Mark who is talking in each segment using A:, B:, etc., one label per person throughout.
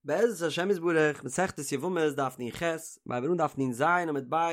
A: בעזרת השם יתברך, מסכת יבמות דף נ"ח, מיר הייבן אן דף נ"ז עמוד ב',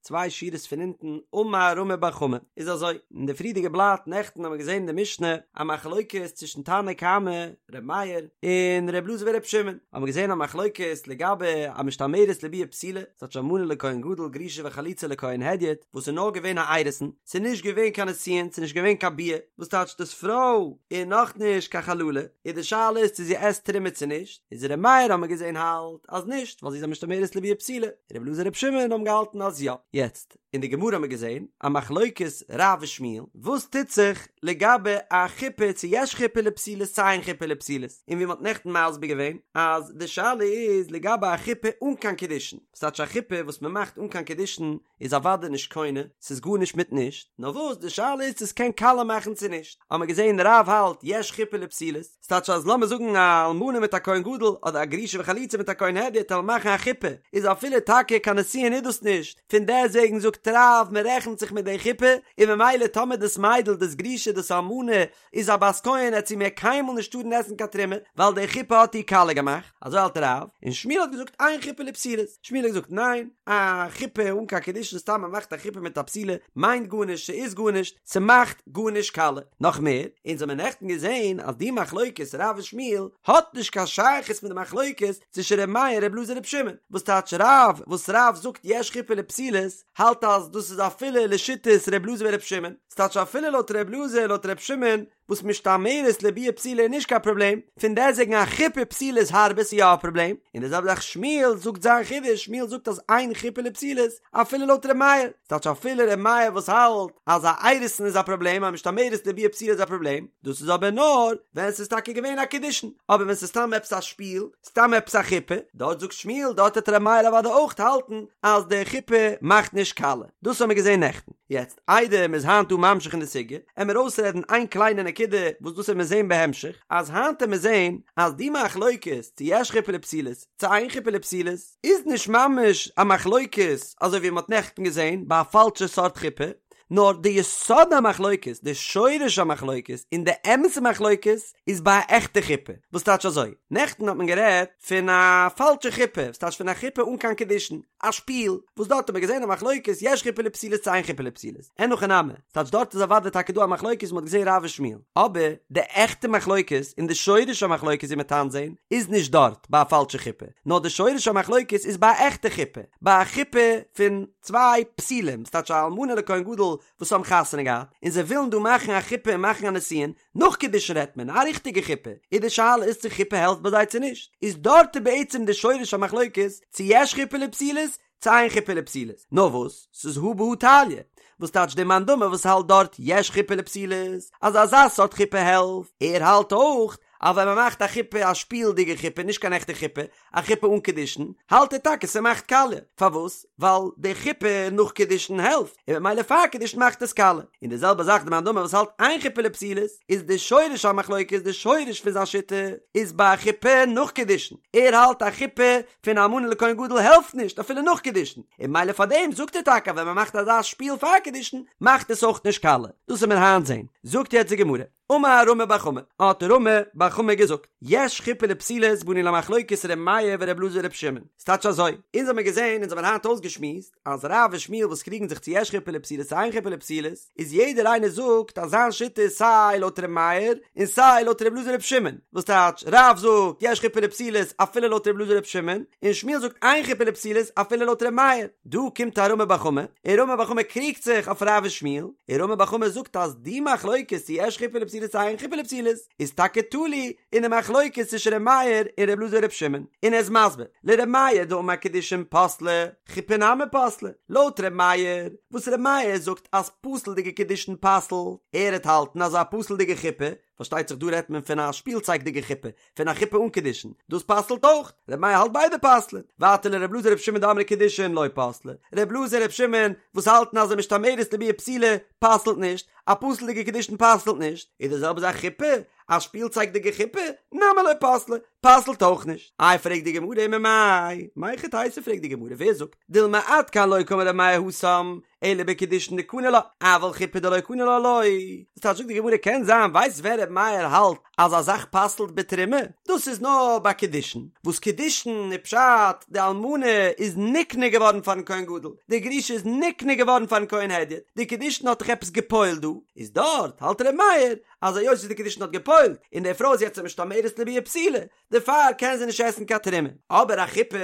A: צוויי שורות פון אונטן, אמר רמי בר חמא, איז אזוי, אין די פריערדיגע בלאט נעכטן האבן מיר געזען אין די משנה א מחלוקת צווישן תנא קמא, ר' מאיר, און ר' אלעזר ור' שמעון, האבן מיר געזען א מחלוקת לגבי א משתמרת לביאה פסולה, ס'טייטש אלמנה לכהן גדול גרושה וחלוצה לכהן הדיוט, וואס איז נאר געווען א אירוסין, ס'איז נישט געווען קיין נישואין, ס'איז נישט געווען קיין ביאה, וואס טייטש דאס פרוי איז נאך נישט קיין חללה, איז די שאלה איז צו זי עסט תרומה צו נישט, איז ר' מאיר האט מען געזען האלט אז נישט ווייל זי איז א משתמרת לביאה פסולה, ר' אלעזר ר' שמעון האבן געהאלטן אז יא. יעצט, אין די גמרא האט מען געזען א מחלוקת רב ושמואל, וואס טוט זיך לגבי א חופה צו יש חופה לפסולות צו אין חופה לפסולות, און ווי מען האט נעכטן מסביר געווען אז די שאלה איז לגבי א חופה אן קיין קידושין, וואס טייטש א חופה וואס מען מאכט אן קיין קידושין איז אוודאי נישט קונה, ס'איז גארנישט מיט נישט, נאר וואס די שאלה איז צו ס'קען קאליע מאכן צו נישט, האמער געזען רב האלט יש חופה לפסולות, ס'טייטש אז לאמיר זאגן א אלמנה מיט א כהן גדול אדער א גרושה וחלוצה מיט א כהן הדיוט וועלן מאכן א חופה, איז אפילו טאקע קיין נישואין איז דאס נישט, פון דעסוועגן זאגט רב מ'רעכנט זיך מיט די חופה, און ממילא טאמער דאס מיידל דאס גרושה דאס אלמנה איז א בת כהן עט זי מער קיינמאל נישט טארן עסן קיין תרומה ווייל די חופה האט איר קאליע געמאכט, אזוי האלט רב, און שמואל האט געזאגט אין חופה לפסולות, שמואל האט געזאגט ניין, א חופה אן קיין קידושין סתם מען מאכט א חופה מיט א בתולה מיינט גארנישט ס'איז גארנישט ס'מאכט גארנישט קאליע, נאך מער, אונז האמיר נעכטן געזען אז די מחלוקת רב און שמואל האט נישט קיין שייכות מיט די מחלוקת צווישן ר' מאיר ר' אלעזר ר' שמעון, וואס טייטש רב וואס רב זאגט יש חופה לפסולות האלט אז דאס איז אפילו לשיטת ר' אלעזר ור' שמעון, ס'טייטש אפילו לויט ר' אלעזר לויט ר' שמעון וואס משתמרת לביאה פסולה איז נישט קיין פראבלעם, פון דעסוועגן א חופה פסולה איז הארבער ס'איז יא א פראבלעם, און די זעלבע זאך שמואל זאגט זיין חידוש, שמואל זאגט אז אין חופה לפסולות אפילו לויט ר' מאיר, ס'טייטש אפילו ר' מאיר וואס האלט אז א אירוסין איז א פראבלעם א משתמרת לביאה פסולה איז א פראבלעם, דאס איז אבער נאר ווען ס'איז טאקע געווען א קידושין, אבער ווען ס'איז סתם עפעס א שפיל, סתם עפעס א חופה, דארט זאגט שמואל דארט וועט ר' מאיר אוודאי אויך האלטן אז די חופה מאכט נישט קאליע, דאס האמיר געזען נעכטן. יעצט איידער מ'איז היינט דא ממשיך אין די סוגיא, עמיר אויסרעדן איין קליינע נקודה וואס דאס עמיר זעהן בהמשך, אז היינט עמיר זעהן אז די מחלוקת צו יש חופה לפסולות צו אין חופה לפסולות איז נישט ממש א מחלוקת אזוי ווי מ'האט נעכטן געזעהן ביי א פאלשע סארט חופה, נאר די יסוד המחלוקת, די שורש המחלוקת, און די אמת'ע מחלוקת איז ביי א עכטע חופה, וואס טייטש אזוי? נעכטן האט מען גערעדט פון א פאלשע חופה, וואס טייטש פון א חופה אן קיין קידושין, א שפיל, וואס דארט האט מען געזען א מחלוקת יש חופה לפסולות צו אין חופה לפסולות, אין הכי נמי, ס'טייטש דארט איז אוודאי טאקע דא א מחלוקת מ'האט געזען רב ושמואל, אבער די עכטע מחלוקת און די שורש המחלוקת ווי מ'עט היינט זען איז נישט דארט ביי א פאלשע חופה, נאר די שורש המחלוקת איז ביי א עכטע חופה, ביי א חופה פון צוויי פסולים, ס'טייטש א אלמנה לכהן גדול וואס האבן חתונה געהאט, און זיי ווילן דא מאכן א חופה און מאכן א נישואין, נאך קידושין רעדט מען, א ריכטיגע חופה, איז די שאלה איז צו חופה העלפט ביי זיי צו נישט, איז דארט איז בעצם די שורש המחלוקת צו יש חופה לפסולות צו אין חופה לפסולות, נאר וואס, ס'איז הא בהא תליא, וואס טייטש די מאן דאמר וואס האלט דארט יש חופה לפסולות, אז אזא סארט חופה העלפט, ער האלט אויך אז ווען מ'מאכט א חופה א שפילדיגע חופה נישט קיין עכטע חופה, א חופה אן קידושין, האלט ער טאקע ס'מאכט קאליע, פארוואס? ווייל די חופה נאך קידושין העלפט, און ממילא פאר קידושין מאכט עס קאליע. און די זעלבע זאך די מאן דאמר וואס האלט אין חופה לפסולות, איז די שורש המחלוקת די שורש פון זיין שיטה איז ביי א חופה נאך קידושין, ער האלט א חופה פון אלמנה לכהן גדול העלפט נישט אפילו נאך קידושין, און ממילא פאר דעם זאגט ער טאקע אז ווען מ'מאכט אזא שפיל פאר קידושין מאכט עס אויך נישט קאליע. דאס וועט מען היינט זען. זאגט יעצט די גמרא. אמר רמי בר חמא, האט רמי בר חמא געזאגט, יש חופה לפסולות באנו למחלוקת ר' מאיר ור' אלעזר ור' שמעון, ס'טייטש אזוי, אונז האמיר געזען, אונז האמיר היינט אויסגעשמועסט, אז רב און שמואל וואס קריגן זיך צו יש חופה לפסולות צו אין חופה לפסולות, איז יעדער איינער זאגט אז זיין שיטה איז סיי לויט ר' מאיר און סיי לויט ר' אלעזר ר' שמעון, וואס טייטש, רב זאגט יש חופה לפסולות אפילו לויט ר' אלעזר ר' שמעון, און שמואל זאגט אין חופה לפסולות אפילו לויט ר' מאיר. דא קומט א רמי בר חמא, און רמי בר חמא קריגט זיך אויף רב און שמואל, און רמי בר חמא זאגט אז די מחלוקת צו יש חופה לפסולות צו אין חופה לפסולות איז טאקע תלוי אין די מחלוקת צווישן ר' מאיר און ר' אלעזר ר' שמעון, און ער איז מסביר, לר' מאיר דאמר קידושין פסלי, חופה נמי פסלה, לויט ר' מאיר, וואס ר' מאיר זאגט אז פסול'דיגע קידושין פסל'ט, ער וועט האלטן אז א פסול'דיגע חופה, פארשטייט זיך דא רעדט מען פון א שפילצייגדיגע חופה, פון א חופה אן קידושין, דאס פסל'ט אויך, ר' מאיר האלט ביידע פסל'ען, ווייטער לר' אלעזר ר' שמעון דאמרי קידושין לא פסלי, ר' אלעזר ר' שמעון וואס האלטן אז א משתמרת לביאה פסולה פסל'ט נישט, א פסול'דיגע קידושין פסל'ט נישט, איז די זעלבע זאך חופה, א שפילצייגדיגע חופה, נמי לא פסלה, פסל'ט אויך נישט. איי פרעגט די גמרא וממאי, מהיכי תיתי פרעגט די גמרא ווער זאגט, דילמא עד כאן לא קאמר ר' מאיר התם, אלא בקידושין דקני לה, אבל חופה דלא קני לה לא. וואס טייטש זאגט די גמרא קען זיין ווייסט ווען ר' מאיר האלט אז א זאך פסל'ט בתרומה? דאס איז נאר ביי קידושין, וואס קידושין איז פשט די אלמנה איז נקנה געווארן פארן כהן גדול, די גרושה איז נקנה געווארן פארן כהן הדיוט, די קידושין האט דאך עפעס גע'פועל'ט דא, איז דארט האלט ר' מאיר אז היות וואס די קידושין האט גע'פועל'ט און די פרוי איז יעצט א משתמרת לביאה פסולה, דערפאר קען זי נישט עסן קיין תרומה. אבער א חופה,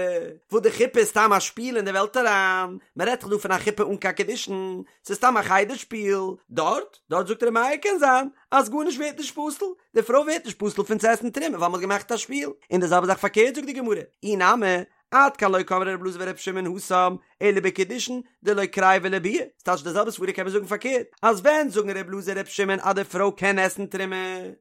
A: וואס די חופה איז סתם א שפיל אין די וועלט אריין, מען רעדט דאך דא פון א חופה אן קיין קידושין, ס'איז סתם א חדר שפיל, דארט, דארט זאגט ר' מאיר קען זיין אז גארנישט ווערט נישט פסול, די פרוי ווערט נישט פסול פון צו עסן תרומה ווייל מען האט געמאכט א שפיל, און די זעלבע זאך פארקערט זאגט די גמרא, אי נמי, עד כאן לא קאמרי ר' אלעזר ור' שמעון התם, אלא בקידושין דלא קריבי לביאה, ס'טייטש די זעלבע סברא קען מען זאגן פארקערט, אז ווען זאגן ר' אלעזר ר' שמעון אז די פרוי קען עסן תרומה,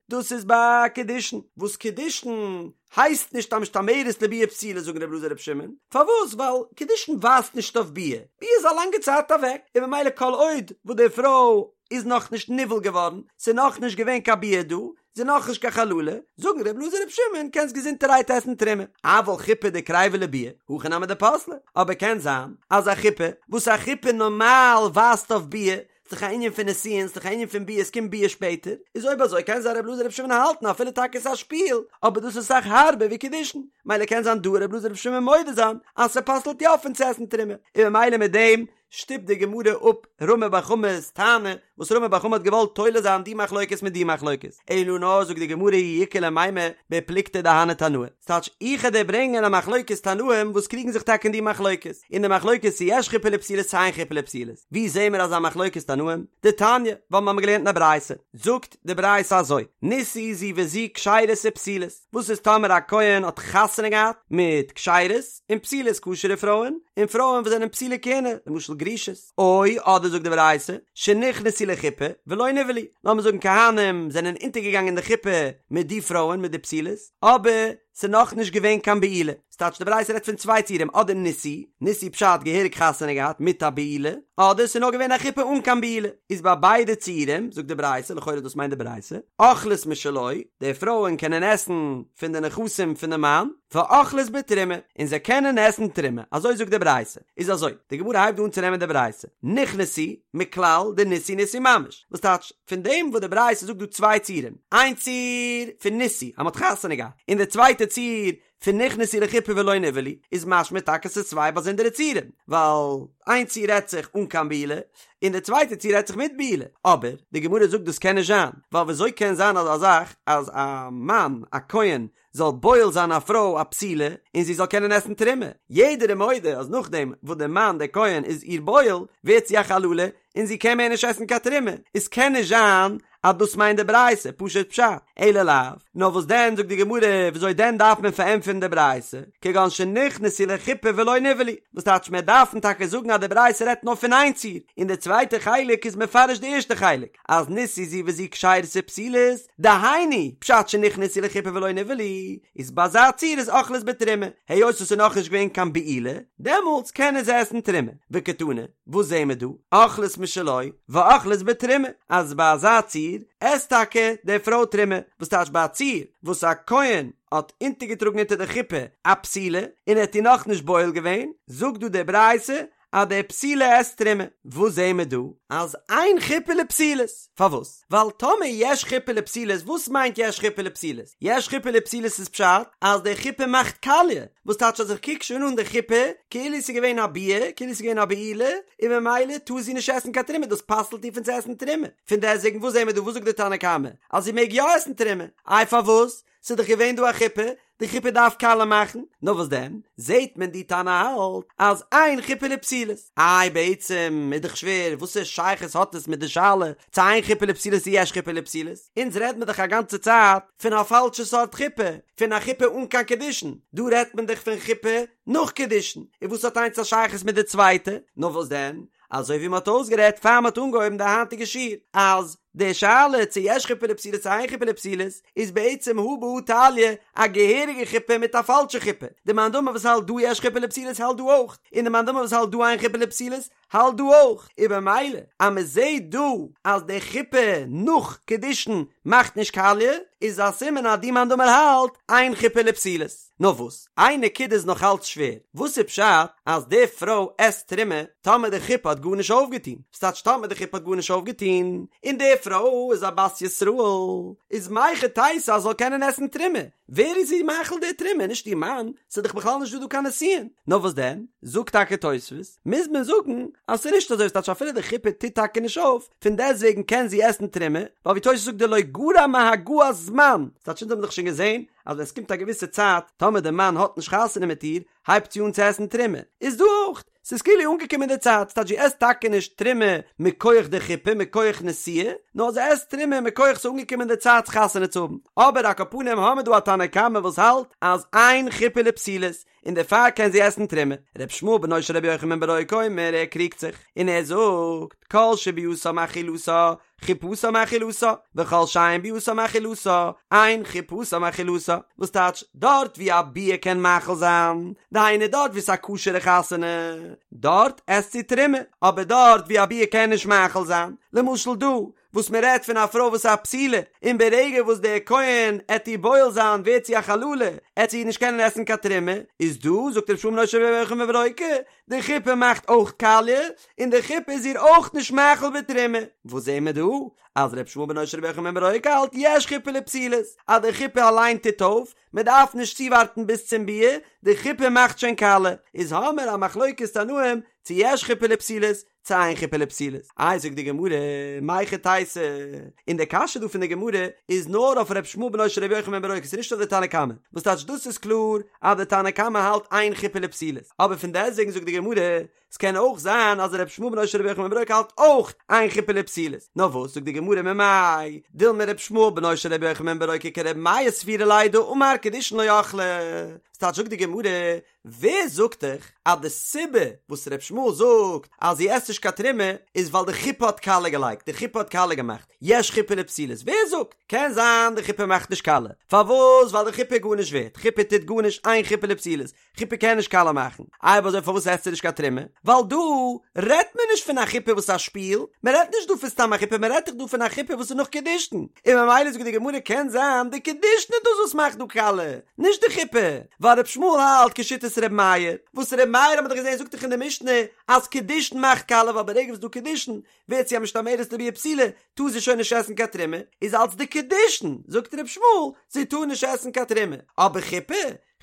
A: דאס איזביי קידושין, וואס קידושין הייסט נישט א משתמרת לביאה פסולה זאגן ר' אלעזר ר' שמעון, פארוואס ווייל קידושין ווייזט נישט אויף ביאה, ביאה איז א לאנגע צייט אוועק, און ממילא כל עוד וואס די פרוי איז נאכנישט נבעל געווארן, ס'איז נאכנישט געווען קיין ביאה דא, זי איז נאכנישט קיין חללה, זאגן ר' אלעזר ר' שמעון קענסט געזונטערהייט עסן תרומה, אבל חופה דקריבה לביאה, הכי נמי דפסלה, אבער קען זיין אז א חופה, וואס א חופה נארמאל ווייזט אויף ביאה, ס'דאך א ענין פון נישואין, ס'דאך א ענין פון ביאה, ס'קומט ביאה שפעטער, איז אויב אזוי קען זיין ר' אלעזר ר' שמעון האלטן אפילו טאקע ס'איז א שפיל, אבער דאס איז אסאך הארבער ווי קידושין, מילא קען זיין דא ר' אלעזר ר' שמעון מודה זיין אז ס'פסל'ט יא פון צו עסן תרומה, און ממילא מיט דעם שטופט די גמרא אפ רמי בר חמא'ס טענה וואס רמי בר חמא האט געוואלט תולה זיין די מחלוקת מיט די מחלוקת, אלא נאר זאגט די גמרא אי איכא למימר בפלוגתא דהני תנאי, ס'טייטש איך וועל דיר ברענגען א מחלוקת תנאים וואס קריגן זיך טאקע אין די מחלוקת, אין די מחלוקת צו יש חופה לפסולות צו אין חופה לפסולות, ווי זעהן מיר אזא מחלוקת תנאים? דתניא, ווייל מ'האמיר געלערנט אין א ברייתא, זאגט די ברייתא אזוי, נישאו זו וזו כשרות ופסולות, וואס איז טאמער א כהן האט חתונה געהאט מיט כשרות און פסולות כשר'ע פרויען, און פרויען וואס זענען פסולי כהונה, למשל גרושות, או אדער זאגט די ברייתא, שנכנסו לחופה ולא נבעלו, לאמיר זאגן כהנים זענען אונטערגעגאנגען די חופה מיט די פרויען מיט די פסולות, אבער ס'איז נאכנישט געווען קיין בעילה, ס'טייטש די ברייתא רעדט פון צוויי ציורים אדער נישאו, נישאו פשט געהעריג חתונה געהאט מיט א בעילה, אדער ס'איז נאר געווען א חופה אן קיין בעילה, איז ביי ביידע ציורים, זאגט די ברייתא, לכאורה דאס מיינט די ברייתא, אוכלות משלו, די פרויען קענען עסן פון די נכסים פון די מאן, ואוכלות בתרומה, און זיי קענען עסן תרומה, אזוי זאגט די ברייתא, איז אזוי, די גמרא הייבט דא אן צו נעמען די ברייתא, נכנסו, מכלל דנישאו נישאו ממש, וואס טייטש, פון דעם וואס די ברייתא זאגט דא צוויי ציורים, איין ציור פון נישאו אז מ'האט חתונה געהאט, און די צווייטע ציור פון נכנסו לחופה ולא נבעלו, איז משמע טאקע ס'איז צוויי באזונדערע ציורים, ווייל איין ציור רעדט זיך אן קיין בעילה, און די צווייטע ציור רעדט זיך מיט בעילה, אבער די גמרא זאגט דאס קען נישט זיין, ווייל וויאזוי קען זיין אזא זאך אז א מאן א כהן זאל בועל זיין א פרוי א פסולה און זי זאל קענען עסן תרומה, יעדער איז מודה אז נאכדעם וואס דער מאן דער כהן איז איר בועל ווערט זי א חללה און זי קען מער נישט עסן קיין תרומה, איז קען נישט זיין אז דאס מיינט די ברייתא, פשוט פשט, אלא לאו, נאר וואס דען זאגט די גמרא וויאזוי דען דארף מען פארענטפערן די ברייתא, כגון שנכנסו לחופה ולא נבעלו, וואס טייטש מיר דארפן טאקע זאגן אז די ברייתא רעדט נאר פון איין ציור, און די צווייטע חלק איז מפרש די ערשטע חלק, אז נישאו זו וזו כשרות ופסולות, דהיינו, פשט שנכנסו לחופה ולא נבעלו, איז ביי אזא ציור איז אוכלות בתרומה, היות עס איז נאכנישט געווען קיין בעילה, דעמאלטס קענען זיי עסן תרומה, וקתני, וואס זעהן מיר דא? אוכלות משלו ואוכלות בתרומה, אז ביי אזא ציור עסט טאקע די פרוי תרומה, וואס טייטש ביי א ציור וואס א כהן האט אונטערגעטראגן אונטער די חופה א פסולה און ער האט איר נאכנישט בועל געווען, זאגט דא די ברייתא אז די פסולה עסט תרומה. וואס זעהן מיר דא? אז אין חופה לפסולות. פארוואס? ווייל טאמער יש חופה לפסולות, וואס מיינט יש חופה לפסולות? יש חופה לפסולות איז פשט אז די חופה מאכט קאליע, וואס טייטש אז איך קוק שוין אן די חופה כאילו ס'איז געווען א ביאה, כאילו ס'איז געווען א בעילה, און ממילא טאר זי נישט עסן קיין תרומה, דאס פסל'ט איר פון צו עסן תרומה. פון דעסטוועגן וואס זעהן מיר דא? וואס זאגט די תנא קמא? אז זי מעג יא עסן תרומה. איי פארוואס? ס'איז דאך געווען דא א חופה, די חופה דארף קאליע מאכן, נאר וואס דען, זעהט מען די תנא האלט אז אין חופה לפסולות, איי בעצם איז דאך שווער, וואסע שייכות האט עס מיט די שאלה צו אין חופה לפסולות צו יש חופה לפסולות, אונז רעד מיר דאך א גאנצע צייט פון א פאלשע סארט חופה, פון א חופה אן קיין קידושין, דא רעדט מען דאך פון חופה נאך קידושין, און וואס האט איינס א שייכות מיט די צווייטע, נאר וואס דען, אזוי ווי מען האט אויסגערעדט פאר מען האט אנגעהויבן די היינטיגע שיעור, אז. די שאלה צו יש חופה לפסולות צו אין חופה לפסולות איז בעצם הא בהא תליא א געהעריגע חופה מיט א פאלשע חופה, די מאן דאמר וואס האלט דא יש חופה לפסולות האלט דא אויך, און די מאן דאמר וואס האלט דא אין חופה לפסולות האלט דא אויך, און במילא אז מען זעהט דא אז די חופה נאך קידושין מאכט נישט קאליע, איז א סימן אז די מאן דאמר האלט אין חופה לפסולות. נאר וואס? איין נקודה איז נאך אלץ שווער, וואס איז פשט אז די פרוי עסט תרומה טאמער די חופה האט גארנישט אויפגעטון? ס'טייטש טאמער די חופה האט גארנישט אויפגעטון, און די פרוי איז א בת ישראל, איז מהיכי תיתי אז זי זאל קענען עסן תרומה? ווער איז איר מאכיל די תרומה? נישט איר מאן, ס'איז דאך בכלל נישט דא דא קיין נישואין. נאר וואס דען? זאגט טאקע תוספות, מוז מען זאגן אז ס'איז נישט אזוי, ס'טייטש אפילו די חופה טוט טאקע נישט אויף, פון דעסטוועגן קען זי עסן תרומה, ווייל ווי תוספות זאגט דלא גרע מהגעת זמן, ס'טייטש אונז האבן דאך שוין געזען אז ווען ס'קומט א געוויסע צייט, טאמער די מאן האט נישט חתונה מיט איר, הייבט זי אן צו עסן תרומה, איז דא אויך, ס'איז כאילו אנגעקומען די צייט, ס'טייטש זי עסט טאקע נישט תרומה מכח די חופה, מכח נישואין, נאר זי עסט תרומה מכח ס'איז אנגעקומען די צייט חתונה צו האבן. אבער על כל פנים האמיר דא א תנא קמא וואס האלט אז אין חופה לפסולות, און דערפאר קען זי עסן תרומה. ר' ישמעאל בנו של רבי יוחנן בן ברוקה אומר, ער קריגט זיך, און ער זאגט, כל שביאתה מאכילתה, חופתה מאכילתה, וכל שאין ביאתה מאכילתה, אין חופתה מאכילתה, וואס טייטש, דארט ווי א ביאה קען מאכיל זיין, דהיינו דארט ווי ס'איז א כשר'ע חתונה, דארט עסט זי תרומה, אבער דארט ווי א ביאה קען נישט מאכיל זיין, למשל דא, וואס מען רעדט פון א פרוי וואס איז א בתולה, און ברגע וואס דער כהן עט איר בועל זיין ווערט זי א חללה, עט זי נישט קענען עסן קיין תרומה, איז דא, זאגט ר' ישמעאל בנו של ר' יוחנן בן ברוקה, די חופה מאכט אויך קאליע, און די חופה איז איר אויך נישט מאכיל בתרומה. וואס זעהן מיר דא? אז ר' ישמעאל בנו של ר' יוחנן בן ברוקה האלט יש חופה לפסולות, אז די חופה אליין טוט אויף, מען דארף נישט צואווארטן ביז צום ביאה, די חופה מאכט שוין קאליע. איז האמיר א מחלוקת תנאים צו יש חופה לפסולות, צו אין חופה לפסולות. איי זאגט די גמרא, מהיכי תיתי, און די קשיא דא פון די גמרא איז נאר אויף ר' ישמעאל בנו של ר' יוחנן בן ברוקה, ס'איז נישט אויף די תנא קמא, וואס טייטש דאס איז קלאר אז די תנא קמא האלט אין חופה לפסולות, אבער פון דעסטוועגן זאגט די גמרא, ס'קען אויך זיין אז ר' ישמעאל בנו של ר' יוחנן בן ברוקה האלט אויך אין חופה לפסולות, נאר וואס זאגט די גמרא ממאי דילמא ר' ישמעאל בנו של ר' יוחנן בן ברוקה כר' מאיר סבירא ליה דאמר קידושין לא אכלה, וואס טייטש זאגט די גמרא, ווער זאגט דיך אז די סיבה וואס ר' ישמעאל זאגט אז זי עסט נישט קיין תרומה איז ווייל די חופה האט קאליע געלייגט, די חופה האט קאליע געמאכט, יש חופה לפסולות, ווער זאגט? קען זיין די חופה מאכט נישט קאליע, פארוואס? ווייל די חופה איז גארנישט ווערט, חופה טוט גארנישט, אין חופה לפסולות, חופה קען נישט קאליע מאכן, איי אויב אזוי פארוואס עסט זי נישט קיין תרומה? ווייל דא רעדט מען נישט פון א חופה וואס איז א שפיל, מען רעדט נישט דא פון סתם א חופה, מען רעדט דאך דא פון א חופה וואס איז נאך קידושין, און ממילא זאגט די גמרא קען זיין די קידושין איז דאס וואס מאכט דא קאליע, נישט די חופה, ווייל ר' ישמעאל האלט כשיטת ר' מאיר, וואס ר' מאיר האט מען דאך געזען זאגט דאך אין די משנה אז קידושין מאכט קאליע ווייל ברגע וואס איז דא קידושין ווערט זי א משתמרת לביאה פסולה טאר זי שוין נישט עסן קיין תרומה, איז אלץ די קידושין זאגט ר' ישמעאל זי טאר נישט עסן קיין תרומה, אבער חופה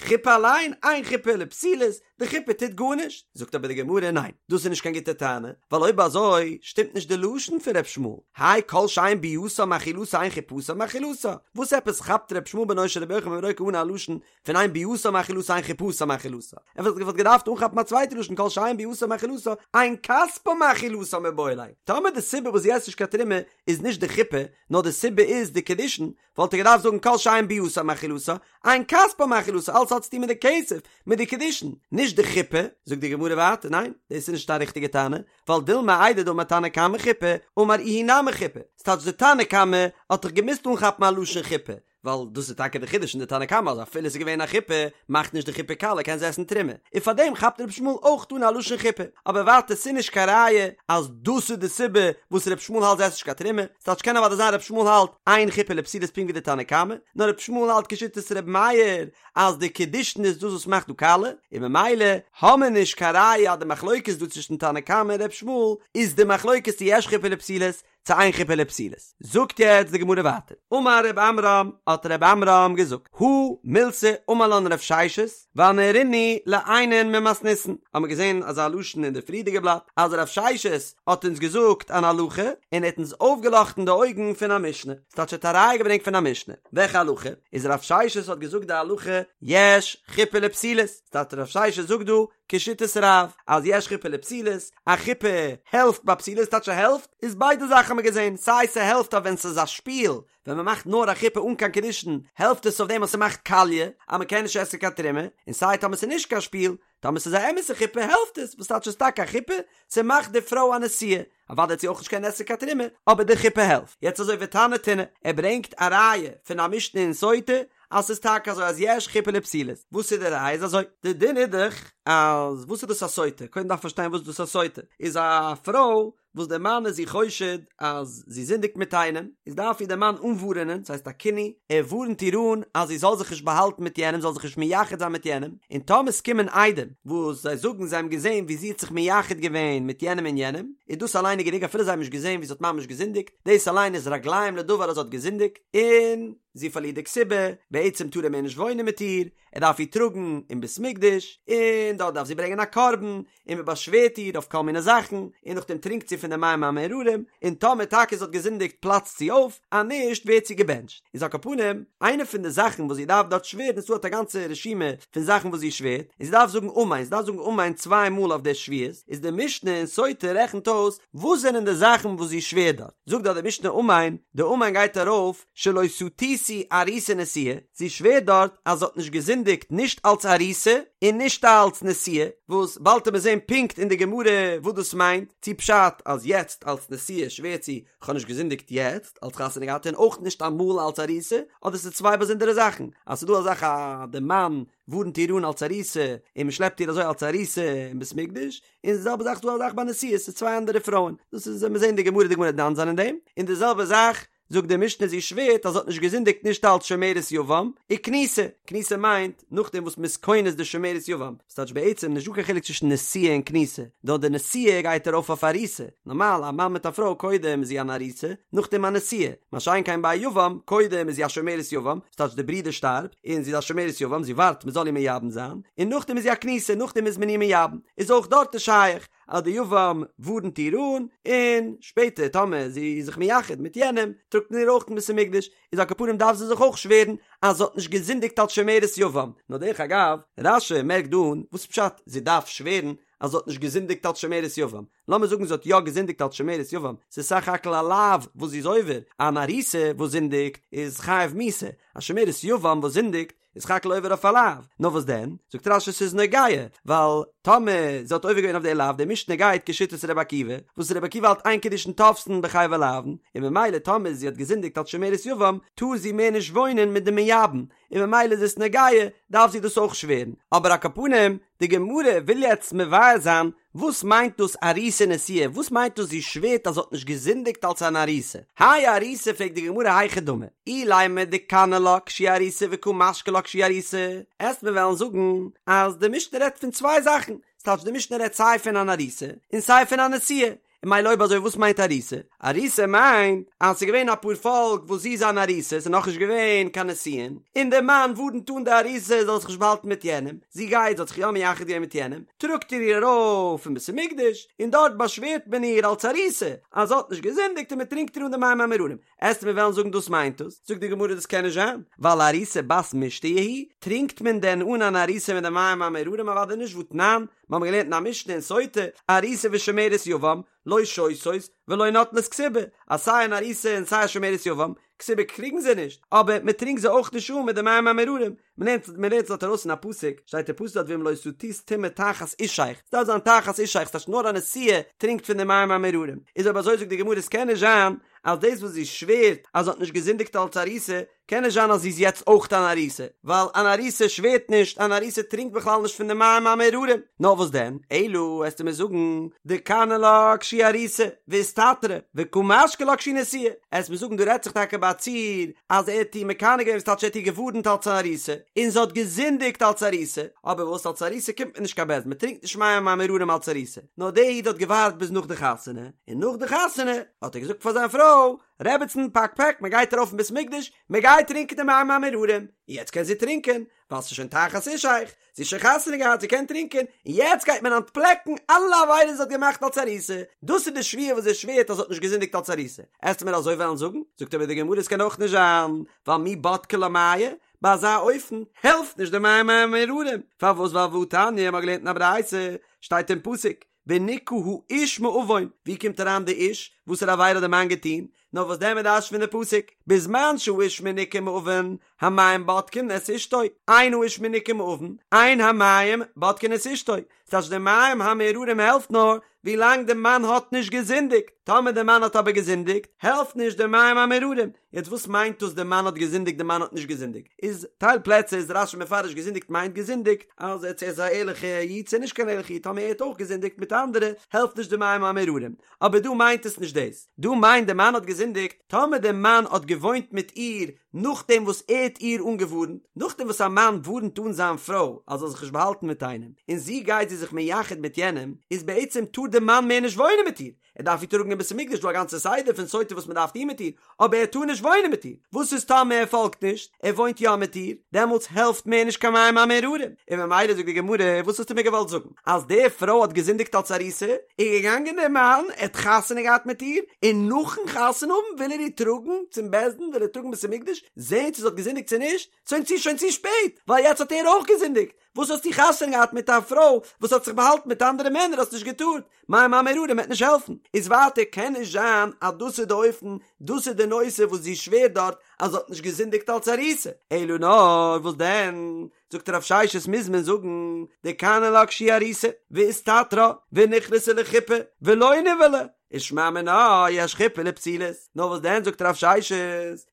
A: חופה אליין, אין חופה לפסולות, די חופה טוט גארנישט. זאגט אבער די גמרא ניין, דאס איז נישט קיין גוטע טענה, ווייל אויב אזוי שטימט נישט די לשון פון ר' ישמעאל, האי כל שאין ביאתה מאכילתה אין חופתה מאכילתה, וואס עפעס כאפט ר' ישמעאל בנו של רבי יוחנן בן ברוקה אן א לשון פון אין ביאתה מאכילתה אין חופתה מאכילתה, ער וואלט געדארפט אנכאפן א צווייטע לשון כל שאין ביאתה מאכילתה אין כספה מאכילתה מיבעי ליה, טאמער די סיבה וואס זי עסט נישט קיין תרומה איז נישט די חופה, נאר די סיבה איז די קידושין, וואלט ער געדארפט זאגן כל שאין ביאתה מאכילתה, אין כספה מאכילתה, אלס האט צוטון מיט די כסף, מיט די קידושין, נישט די חופה, זאגט די גמרא ווייטער, ניין, דאס איז נישט א ריכטיגע טענה, ווייל דילמא איידי דאמר תנא קמא חופה, אמר איהו נמי חופה, ס'טייטש די תנא קמא האט דאך געמוזט אנכאפן א לשון חופה, ווייל דאס איז טאקע די חידוש אין די תנא קמא אז אפילו ס'איז געווען א חופה, מאכט נישט די חופה קאליע קען זי עסן תרומה, און פארדעם כאפט ר' ישמעאל אויך אן א לשון חופה, אבער ווייטער ס'איז נישט קיין ראיה אז דאס איז די סיבה וואס ר' ישמעאל האלט זי עסט נישט קיין תרומה, ס'טייטש קען אוודאי זיין ר' ישמעאל האלט אין חופה לפסולות פונקט ווי די תנא קמא, נאר ר' ישמעאל האלט כשיטת ר' מאיר אז די קידושין איז דאס וואס מאכט דא קאליע, און ממילא האמיר נישט קיין ראיה אז די מחלוקת דא צווישן תנא קמא און ר' ישמעאל איז די מחלוקת צו יש חופה לפסולות צו אין חופה לפסולות. זאגט יעצט די גמרא ווייטער, אמר ר' עמרם, האט ר' עמרם געזאגט, הא מילתא אמר לן רב ששת, ואנהרינהו לעיינין ממתניתין, האמיר געזען אזא לשון אין די פריערדיגע בלאט, אז רב ששת האט אונז געזאגט אן הלכה, און ער האט אונז אויפגעלאכטן די אויגן פון א משנה, ס'טייטש ער האט א ראיה געברענגט פון א משנה, וועלכע הלכה? איז רב ששת האט געזאגט די הלכה יש חופה לפסולות, ס'טייטש רב ששת זאגט דא. כשיטת רב, אז יש חופה לפסולות, א חופה העלפט ביי פסולות, טייטש ס'העלפט, איז ביידע זאכן האבן מיר געזען, סיי ס'העלפט אז ווען ס'איז א שפיל, ווען מ'מאכט נאר א חופה אן קיין קידושין, העלפט עס אויף דעם אז ס'מאכט קאליע, אז מ'קען נישט עסן קיין תרומה, און סיי טאמער ס'איז נישט קיין שפיל, טאמער ס'איז א אמת'ע חופה העלפט עס, וואס טייטש ס'איז טאקע א חופה? ס'מאכט די פרוי א נשואה, אוודאי וועט זי אויך נישט קענען עסן קיין תרומה, אבער די חופה העלפט. יעצט אזוי ותנא תונא, ער ברענגט א ראיה פון א משנה אין סוטה אז ס'איז טאקע אזוי אז יש חופה לפסולות, וואס איז די ראיה? איז אזוי, די דין איז דאך אז וואס איז דאס א סוטה? קודם דארף מען פארשטיין וואס איז דאס א סוטה, איז א פרוי וואס דער מאן איז איר חושד אז זי זינדיגט מיט איינעם, איז דארף איר דער מאן אנווארענען, ס'הייסט א קינוי, ער ווארנט איר אן אז זי זאל זיך נישט באהאלטן מיט יענעם, זאל זיך נישט מייחד זיין מיט יענעם, און טאמער ס'קומען עדים וואס זיי זאגן זיי האבן געזען ווי זי האט זיך מייחד געווען מיט יענעם און יענעם, איז דאס אליין איז גענוג אפילו זיי האבן נישט געזען ווי זי האט ממש געזינדיגט, דאס אליין איז רגליים לדבר אז זי האט געזינדיגט, און זי פארלירט די כתובה, בעצם טאר ער מער נישט וואוינען מיט איר, ער דארף איר טראגן אין בית מקדש, און דארט דארף זי ברענגען א קרבן, און מען באשווערט איר אויף כל מיני זאכן, און נאכדעם טרינקט זי פון די מים המאררים, און טאמער טאקע זי האט געזינדיגט פלאצט זי אויף, אז נישט ווערט זי געבענטשט. איז על כל פנים, איינע פון די זאכן וואס זי דארף דארט שווערן, איז דא האט א גאנצע רשימה פון זאכן וואס זי שווערט, און זי דארף זאגן אמן, זי דארף זאגן אמן צוויי מאל אויף די שבועות, איז די משנה אין סוטה רעכנט אויס וואס זענען די זאכן וואס זי שווערט דארט, זאגט דארט די משנה אמן, די אמן גייט ארויף, שלא סטיתי ארוסה ונשואה, זי שווערט דארט אז זי האט נישט געזינדיגט נישט אלץ ארוסה און נישט אלץ נשואה, וואס באלד וועט מען זען פונקט אין די גמרא וואס דאס מיינט, צו פשט אז יעצט אלץ נשואה שווערט זי כ'האב נישט געזינדיגט יעצט אלץ חתונה געהאט און אויך נישט אמאל אלץ ארוסה, אדער ס'איז צוויי באזונדערע זאכן, אז ס'איז דא א זאך אז די מאן ווארנט איר אן אלץ ארוסה און מ'שלעפט איר אזוי אלץ ארוסה אין בית מקדש, און די זעלבע זאך איז דא א זאך ביי נשואה, ס'איז צוויי אנדערע פרויען, דאס איז מיר זען די גמרא די גמרא וועט דן זיין אין דעם, און די זעלבע זאך זאגט די משנה זי שווערט אז זי האט נישט געזינדיגט נישט אלץ שומרת יבם, וכנוסה, כנוסה מיינט נאכדעם וואס מ'איז כונס די שומרת יבם, ס'טייטש בעצם נישט דא קיין חילוק צווישן נשואה און כנוסה, נאר די נשואה גייט ארויף אויף ארוסה, נארמאל א מאן מיט א פרוי קודם איז זי אן ארוסה, נאכדעם א נשואה, מה שאין כן ביי א יבם, קודם איז זי א שומרת יבם, ס'טייטש די ברודער שטארבט, און זי איז א שומרת יבם, זי ווארט מ'זאל איר מייבם זיין, און נאכדעם איז זי א כנוסה, נאכדעם איז מען איר מייבם, איז אויך דארט איז שייך אז די יבם ווארנט איר אן, און שפעטער טאמער זי איז זיך מייחד מיט יענעם, טראגט מען איר אויך אין בית המקדש, איז על כל פנים דארף זי זיך אויך שווערן אז זי האט נישט געזינדיגט אלס שומרת יבם. נאר דרך אגב, רש"י מערקט דא אן, וואס פשט זי דארף שווערן אז זי האט נישט געזינדיגט אלס שומרת יבם? לאמיר זאגן זי האט יא געזינדיגט אלס שומרת יבם, ס'איז סך הכל א לאו וואס זי איז עובר, אן ארוסה וואס זינדיגט איז חייב מיתה, א שומרת יבם וואס זינדיגט איז סך הכל עובר אויף א לאו, נאר וואס דען? זאגט רש"י ס'איז נוגע, ווייל טאמער זי האט עובר געווען אויף די לאו, די משנה גייט כשיטת ר' עקיבא, וואס ר' עקיבא האלט אין קידושין תופסין בחייבי לאוין, און ממילא טאמער זי האט געזינדיגט אלס שומרת יבם, טאר זי מער נישט וואוינען מיט די מייבם, און ממילא איז עס נוגע, דארף זי דאס אויך שווערן. אבער על כל פנים, די גמרא וויל יעצט מבאר זיין וואס מיינט דאס ארוסה ונשואה, וואס מיינט דאס זי שווערט אז זי האט נישט געזינדיגט אלס אן ארוסה? האי ארוסה פרעגט די גמרא היכי דמי, אילימא דקני לה כשהיא ארוסה וקא משקי לה כשהיא ארוסה, עסט מיר וועלן זאגן אז די משנה רעדט פון צוויי זאכן, ס'טייטש די משנה רעדט סיי פון אן ארוסה און סיי פון א נשואה, און ממילא אויב אזוי וואס מיינט ארוסה? ארוסה מיינט אז ס'איז געווען א פארפאלק וואס זי איז אן ארוסה, ס'איז נאכנישט געווען קיין נישואין, און דער מאן ווארנט אן די ארוסה זאל זיך נישט באהאלטן מיט יענעם, זי גייט, זי האט זיך יא מייחד געווען מיט יענעם, טראגט ער איר ארויף אין בית המקדש, און דארט באשווערט מען איר אלס ארוסה אז זי האט נישט געזינדיגט און מען טרינקט איר אן די מים המאררים. עסט מיר וועלן זאגן דאס מיינט עס, זאגט די גמרא דאס קען נישט זיין, ווייל ארוסה בת מישתיא היא, טרינקט מען דען אן אן ארוסה מיט די מים המאררים אוודאי נישט והתנן, מיר האבן געלערנט אין א משנה אין סוטה, ארוסה ושומרת יבם, לא שותות ולא נוטלות כתובה, אז סיי אן ארוסה און סיי א שומרת יבם, כתובה קריגן זיי נישט, אבער מען טרינקט זיי אויך נישט אן מיט די מים המאררים, מען לערנט מען לערנט עס דארט ארויס אין א פסוק, שטייט אין פסוק דארט ואם לא שטית טומאה תחת אישך, ס'דארף זיין תחת אישך, ס'טייטש נאר א נשואה טרינקט פון די מים המאררים, איז אויב אזוי זאגט די גמרא עס קען נישט זיין אז דאס וואס זי שווערט אז זי האט נישט געזינדיגט אלץ ארוסה, קען נישט זיין אז זי איז יעצט אויך אן ארוסה, ווייל אן ארוסה שווערט נישט, אן ארוסה טרינקט בכלל נישט פון די מים המאררים, נאר וואס דען, אלא וועסטו מיר זאגן, דקני לה כשהיא ארוסה, ואיסתתרה, וקא משקי לה כשהיא נשואה, עסט מיר זאגן דא רעדט זיך טאקע ביי א ציור אז ער האט איר מקנא געווען וואס טייטש ער האט איר געווארנט אלץ אן ארוסה, און זי האט געזינדיגט אלץ ארוסה, אבער וואס אלץ ארוסה קומט מען נישט קיין בית דין, מען טרינקט נישט מים המאררים אלץ ארוסה, נאר דער איד האט געווארט ביז נאך די חתונה, און נאך די חתונה האט ער געזאגט פאר זיין פרוי, רעבעצן פאק פעק מען גייט ארויף אין בית מקדש, מען גייט טרינקען די מים המאררים, און יעצט קען זי טרינקען, ווייל ס'איז שוין תחת אישך, זי האט שוין חתונה געהאט, זי קען טרינקען, און יעצט גייט מען אנטפלעקן אלע עבירות זי האט געמאכט אלס ארוסה, דאס איז די שבועה וואס זי שווערט אז זי האט נישט געזינדיגט אלס ארוסה, עסטו מיר אזוי וועלן זאגן? זאגט אבער די גמרא עס קען אויך נישט זיין, ווייל מי בדקי לה מיא, ביי אזא אופן העלפט נישט די מים המאררים, פארוואס ווייל והתניא, מ'האט געלערנט אין א ברייתא, שטייט אין פסוק, ונקה האיש מעון, ווי קומט אריין די איש? וואסערע עבירה האט די מאן געטון? נאר וואס דען מ'דרש'נט פון די פסוק, בזמן שהאיש מנוקה מעון, המים בודקין את אשתו, אין האיש מנוקה מעון, אין המים בודקין את אשתו, ס'טייטש די מים המאררים העלפט נאר ווילאנג די מאן האט נישט געזינדיגט, טאמער די מאן האט אבער געזינדיגט, העלפט נישט די מים המאררים. יעצט וואס מיינט דאס די מאן האט געזינדיגט די מאן האט נישט געזינדיגט? איז טייל פלעצער איז רש"י מפרש געזינדיגט מיינט געזינדיגט אז ער איז א ערליכע איד צו נישט קיין ערליכע איד טאמער ער האט אויך געזינדיגט מיט אנדערע העלפט נישט די מים המאררים אבער דא מיינט עס נישט דאס דא מיינט די מאן האט געזינדיגט טאמער די מאן האט געוואוינט מיט איר נאכדעם וואס ער האט איר אנגעווארנט נאכדעם וואס א מאן ווארנט אן זיין פרוי אז זאל זיך נישט באהאלטן מיט איינעם און זי גייט זי זיך מייחד מיט יענעם איז בעצם טאר די מאן מער נישט וואוינען מיט איר ער דארף איר טראגן אין בית המקדש, דא א גאנצע סדר פון סוטה וואס מען דארף טון מיט איר, אבער ער טאר נישט וואוינען מיט איר, וואס איז טאמער ער פאלגט נישט, ער וואוינט יא מיט איר, דעמאלטס העלפט מער נישט קיין מים המאררים, און ממילא זאגט די גמרא, וואס האסטו מיר געוואלט זאגן, אז די פרוי האט געזינדיגט אלס ארוסה, איז געגאנגען דער מאן, ער האט חתונה געהאט מיט איר, און נאכן חתונה האבן וויל ער איר טראגן צום בית דין, וויל ער טראגן בית המקדש, זען צו זי האט געזינדיגט צו נישט, שוין צו שוין צו שפעט, ווייל יעצט האט ער אויך געזינדיגט, וואס האסטו חתונה געהאט מיט א פרוי וואס האט זיך באהאלטן מיט אנדערע מענער האסט נישט געטארט, מים המאררים וועט נישט העלפן, איז ווייטער קען נישט זיין אז דאס איז די אופן, דאס איז די נושא וואס זי שווערט דארט אז זי האט נישט געזינדיגט אלס ארוסה, אלא נאר וואס דען, זאגט רב ששת מוז מען זאגן דקני לה כשהיא ארוסה, ואיסתתרה, ונכנסה לחופה, ולא נבעלה, ושמע מינה יש חופה לפסולות, נאר וואס דען זאגט רב ששת,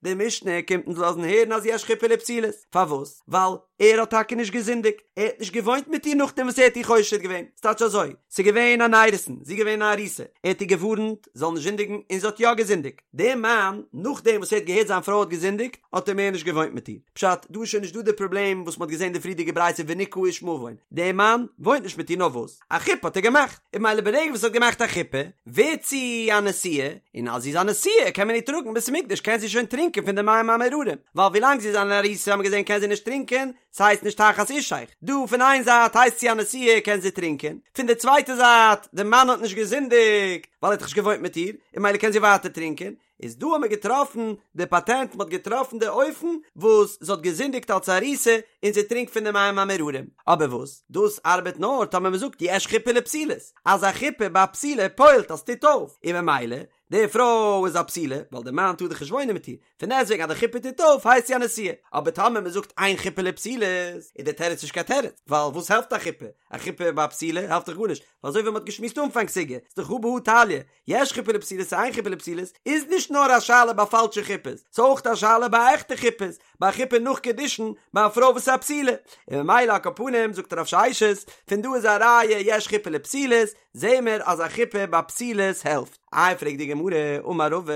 A: די משנה קומט אונז לאזן הערן אז יש חופה לפסולות, פארוואס? ווייל ער האט טאקע נישט געזינדיגט, ער האט נישט געוואוינט מיט איר נאכדעם וואס ער האט איר חושד געווען, ס'טייטש אזוי, ס'איז געווען אן אירוסין, זי איז געווען א ארוסה, ער האט איר געווארנט זי זאל נישט זינדיגן און זי האט יא געזינדיגט, דער מאן נאכדעם וואס ער האט געהערט זיין פרוי האט געזינדיגט האט ער מער נישט געוואוינט מיט איר, פשט, דא איז שוין נישט דא די פראבלעם וואס מ'האט געזען די פריערדיגע ברייתא ונקה האיש מעון, דער מאן וואוינט נישט מיט איר נאר וואס? א חופה האט ער געמאכט, און ממילא ברגע וואס ער האט געמאכט א חופה, ווערט זי א נשואה, און אז זי איז א נשואה קען מען איר טראגן בית המקדש קען זי שוין טרינקען פון די מים המאררים, ווייל ווילאנג זי איז אן ארוסה האט מען געזען קען זי נישט טרינקען, ס'הייסט נישט תחת אישך, דא פון איין זייט הייסט זי א נשואה קען זי טרינקען, פון די צווייטע זייט די מאן האט נישט געזינדיגט ווייל ער האט דאך נישט געוואוינט מיט איר, און ממילא קען זי ווייטער טרינקען, איז דא האט מען געטראפן די פאטענט, מען האט געטראפן די אופן וואס זי האט געזינדיגט אלס ארוסה און זי טרינקט פון די מים המאררים, אבער וואס דאס ארבעט נאר טאמער מען זאגט יש חופה לפסולות, אז א חופה ביי א פסולה פועל'ט אז ס'טוט אויף, און ממילא די פרוי איז א פסולה ווייל די מאן טאר דאך נישט וואוינען מיט איר, פון דעסטוועגן אז די חופה טוט אויף הייסט זי א נשואה, אבער טאמער מען זאגט אין חופה לפסולות איז די תירוץ נישט קיין תירוץ, ווייל וואס העלפט א חופה? א חופה ביי א פסולה העלפט דאך גארנישט, ווייל אזוי ווי מען האט געשמועסט אנפאנג סוגיא, איז דאך הא בהא תליא, יש חופה לפסולות צו אין חופה לפסולות איז נישט נאר א שאלה ביי פאלשע חופות, ס'איז אויך א שאלה ביי עכטע חופות, ביי א חופה נאך קידושין ביי א פרוי וואס איז א פסולה, און ממילא על כל פנים זאגט רב ששת, פון דא איז א ראיה יש חופה לפסולות, זעהן מיר אז א חופה ביי פסולות העלפט. איי פרעגט די גמרא, אמר רבא,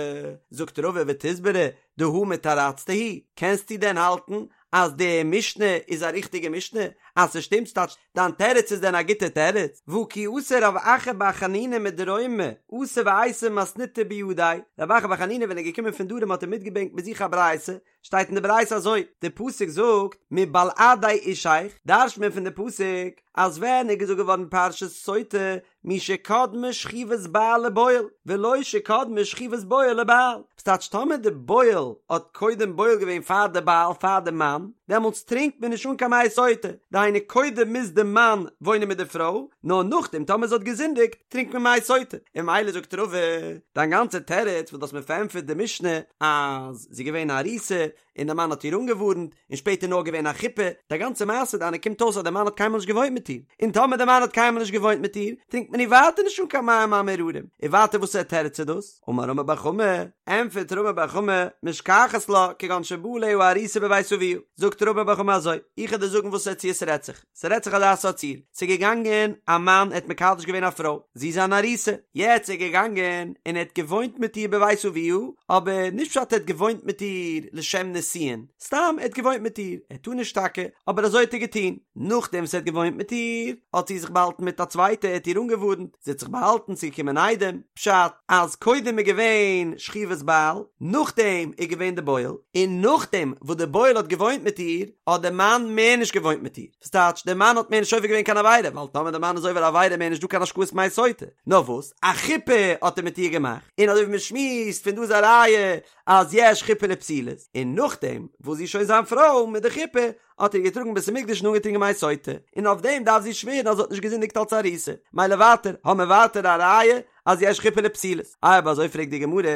A: זאגט רבא ותסברא דהא מתרצתא היא, קענסטו דען האלטן אז די משנה איז א ריכטיגע משנה? אז ס'שטימט ס'טייטש דיין תירוץ איז דען א גוטע תירוץ? והא כי אתא רב אחא בר חנינא מדרומא אתא ואייתי מתניתא בידיה, רב אחא בר חנינא ווען ער איז געקומען פון דרום האט ער מיטגעברענגט מיט זיך א ברייתא, שטייט אין די ברייתא אזוי, די פסוק זאגט מבלעדי אישך, דרש'ט מען פון די פסוק אז ווען איז געזאגט געווארן פרשת סוטה משקדמה שכיבת בעל לבועל, ולא שקדמה שכיבת בועל לבעל. ס'טייטש טאמער די בועל האט קודם בועל געווען פאר די בעל פאר די מאן, דעמאלטס טרינקט מען נישט אן קיין מי סוטה, דהיינו קודם מוז די מאן וואוינען מיט די פרוי, נאר נאכדעם טאמער זי האט געזינדיגט טרינקט מען מי סוטה. און ממילא זאגט רבא, דיין גאנצע תירוץ וואס דו האסט מיר פארענטפערט די משנה אז זי איז געווען א ארוסה און די מאן האט איר אנגעווארנט, און שפעטער נאר געווען א חופה, די גאנצע מעשה דיינע קומט אויס אז די מאן האט קיינמאל נישט געוואוינט מיט איר, און טאמער די מאן האט קיינמאל נישט געוואוינט מיט איר, טרינקט מען איר ווייטער נישט אן קיין מים המאררים, און ווייטער וואסער תירוץ איז דאס? אמר רמי בר חמא, ענטפערט רמי בר חמא, משכחת לה, כגון שבא עליה ארוסה בבית אביה, זאגט רמי בר חמא אזוי, איך וועל דיר זאגן וואסער ציור ס'רעדט. ס'רעדט זיך, ס'רעדט זיך אזא סארט ציור, ס'איז געגאנגען א מאן ער האט מקדש געווען א פרוי, זי איז אן ארוסה, יעצט איז ער געגאנגען און ער האט געוואוינט מיט איר בבית אביה, אבער נישט פשט ער האט געוואוינט מיט איר לשם נישואין, סתם ער האט געוואוינט מיט איר, ער טאר נישט טאקע, אבער אזוי האט ער געטון, נאכדעם וואס ער האט געוואוינט מיט איר, האט זי זיך באהאלטן מיט א צווייטע, ער האט איר אנגעווארנט, זי האט זיך באהאלטן, ס'איז געקומען עדים, פשט אז קודם איז געווען שכיבת בעל, נאכדעם איז געווען די בועל, און נאכדעם וואס די בועל האט געוואוינט מיט איר, האט די מאן מער נישט געוואוינט מיט איר, וואס טייטש די מאן האט מער נישט עובר געווען קיין עבירה, ווייל טאמער די מאן איז עובר עבירה מער נישט דא קיין השקאת מי סוטה, נאר וואס, א חופה האט ער מיט איר געמאכט, און אזוי ווי מען שמועסט פון דא איז א ראיה אז יש חופה לפסולות, און נאכדעם וואס זי איז שוין זיין פרוי מיט די חופה, האט ער איר געטראגן בית המקדש און אנגעטרינקען מי סוטה, און אויף דעם דארף זי שווערן אז זי האט נישט געזינדיגט אלס ארוסה, מילא ווייטער, האמער ווייטער א ראיה אז יש חופה לפסולות. אויב אזוי פרעגט די גמרא,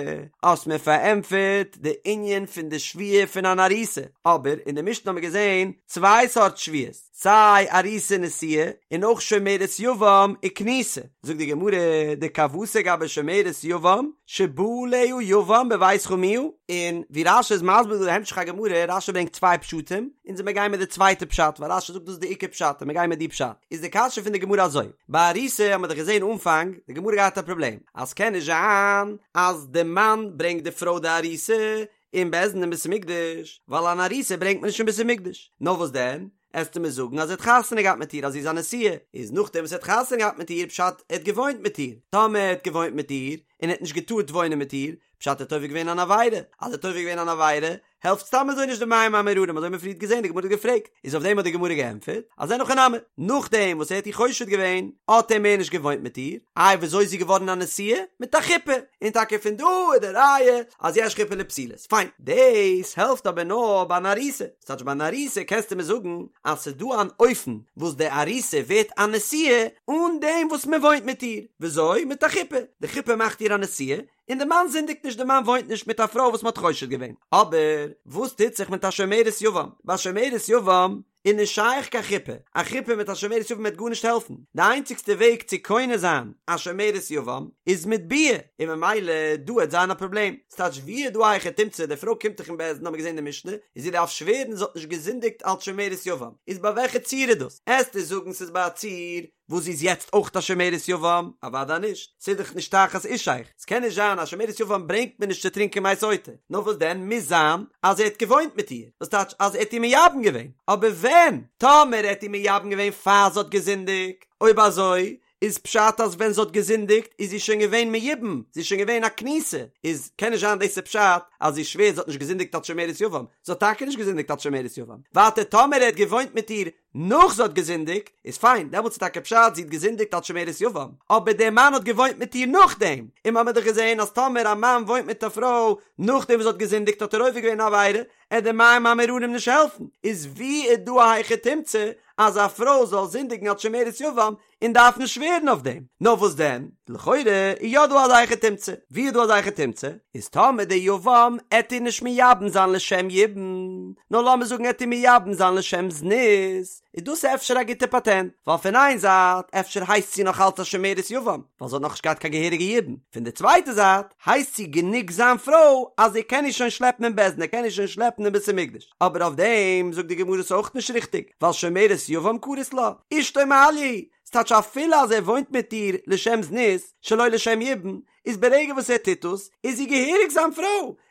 A: האסט מיר פארענטפערט די ענין פון די שבועה פון אן ארוסה, אבער אין די משנה האמער געזען צוויי סארט שבועות, סיי ארוסה נשואה און אויך שומרת יבם וכנוסה, זאגט די גמרא, דכוותיה גבי שומרת יבם שבא עליה יבם בבית חמיה, און ווי רש"י איז מסביר דא די המשך הגמרא, רש"י ברענגט צוויי פשטים, אונז וועמיר גיין מיט די צווייטע פשט, ווייל רש"י זאגט דאס איז די עיקר פשט, און מיר גייען מיט די פשט, איז די קשיא פון די גמרא אזוי, ביי ארוסה האט מען דאך געזען אנפאנג, די גמרא געהאט א פראבלעם, אז ס'קען נישט זיין אז די מאן ברענגט די פרוי די ארוסה אין בית דין אין בית המקדש, ווייל אן ארוסה ברענגט מען נישט אין בית המקדש, נאר וואס דען? עסטו מיר זאגן אז ער האט חתונה געהאט מיט איר אז זי איז א נשואה, איז נאכדעם וואס ער האט חתונה געהאט מיט איר פשט ער האט געוואוינט מיט איר, טאמער ער האט געוואוינט מיט איר און ער האט נישט געטארט וואוינען מיט איר, פשט ער האט עובר געווען אן עבירה, אז ער האט עובר געווען אן עבירה העלפט סתם אזוי נישט די מים המאררים אזוי האט מען פריערט געזען די גמרא האט געפרעגט, איז אויף דעם האט די גמרא געענטפערט אז אין הכי נמי, נאכדעם וואס ער האט איר חושד געווען האט ער מער נישט געוואוינט מיט איר, איי וויאזוי איז זי געווארן א נשואה? מיט א חופה, און טאקע פון דא איז די ראיה אז יש חופה לפסולות, פיין, דאס העלפט אבער נאר ביי אן ארוסה. ס'טייטש ביי אן ארוסה קענסטו מיר זאגן אז ס'איז דא אן אופן וואס די ארוסה ווערט א נשואה אן דעם וואס מען וואוינט מיט איר, וויאזוי? מיט א חופה, די חופה מאכט איר א נשואה, און די מאן זינדיגט נישט די מאן וואוינט נישט מיט א פרוי וואס מ'האט חושד געווען, אבער וואס טוט זיך מיט א שומרת יבם? ביי שומרת יבם איז נישט שייך קיין חופה, א חופה מיט א שומרת יבם וועט גארנישט העלפן, די איינציגסטע וועג צו קונה זיין א שומרת יבם איז מיט ביאה, און ממילא דא וועט זיין א פראבלעם. ס'טייטש ווי איז דא א היכי תמצא, די פרוי קומט דאך אין בית דין האבן מיר געזען אין די משנה, און זי דארף שווערן זי האט נישט געזינדיגט אלץ שומרת יבם, איז ביי וועלכע ציור איז דאס? עסטו זאגן ס'איז ביי א ציור וואס זי איז יעצט אויך א שומרת יבם? אוודאי נישט, ס'איז דאך נישט תחת אישך, ס'קען נישט זיין א שומרת יבם ברענגט מען נישט צו טרינקען מי סוטה, נאר וואס דען מוז זיין אז ער האט געוואוינט מיט איר, וואס טייטש אז ער האט איר מייבם געווען, אבער ווען? טאמער ער האט איר מייבם געווען פאר זי האט געזינדיגט, אויב אזוי איז פשט אז ווען זי האט געזינדיגט איז זי שוין געווען מיובם, זי איז שוין געווען א כנוסה, איז קען נישט זיין דאס איז פשט אז זי שווערט זי האט נישט געזינדיגט אלס שומרת יבם, זי האט טאקע נישט געזינדיגט אלס שומרת יבם, ווייטער טאמער ער האט געוואוינט מיט איר נאך זי האט געזינדיגט, איז פיין, דעמאלטס איז טאקע פשט זי האט געזינדיגט אלס שומרת יבם, אבער דער מאן האט געוואוינט מיט איר נאכדעם, און מ'האמיר דאך געזען אז טאמער א מאן וואוינט מיט א פרוי נאכדעם וואס זי האט געזינדיגט האט ער עובר געווען א עבירה, עט די מים המאררים נישט העלפן, איז ווי איז דא א היכי תמצא אז א פרוי זאל זינדיגן אלס שומרת יבם און דארפן שווערן אויף דעם? נאר וואס דען, לכאורה איז יא דא אזא היכי תמצא, ווי איז דא אזא היכי תמצא? איז טאמער די יבם עט איר נישט מייבם זיין לשם יבום, נאר לאמיר זאגן עט איר מייבם זיין לשם זנות, איז דאס אפשר א גוטע פאטענט, ווייל פון איין זייט אפשר הייסט זי נאך אלץ א שומרת יבם, ווייל זי האט נאכנישט געהאט קיין געהעריגע יבום, פון די צווייטע זייט הייסט זי גענוג זיין פרוי אז ער קען איר שוין שלעפן אין בית דין, ער קען איר שוין שלעפן אין בית המקדש, אבער אויף דעם זאגט די גמרא ס'איז אויך נישט ריכטיג, ווייל שומרת יבם קרית לה, אשתו מעליא היא, ס'טייטש אפילו אז ער וואוינט מיט איר לשם זנות, שלא לשם יבום, איז ברגע וואס ער טוט דאס, איז זי געהעריג זיין פרוי,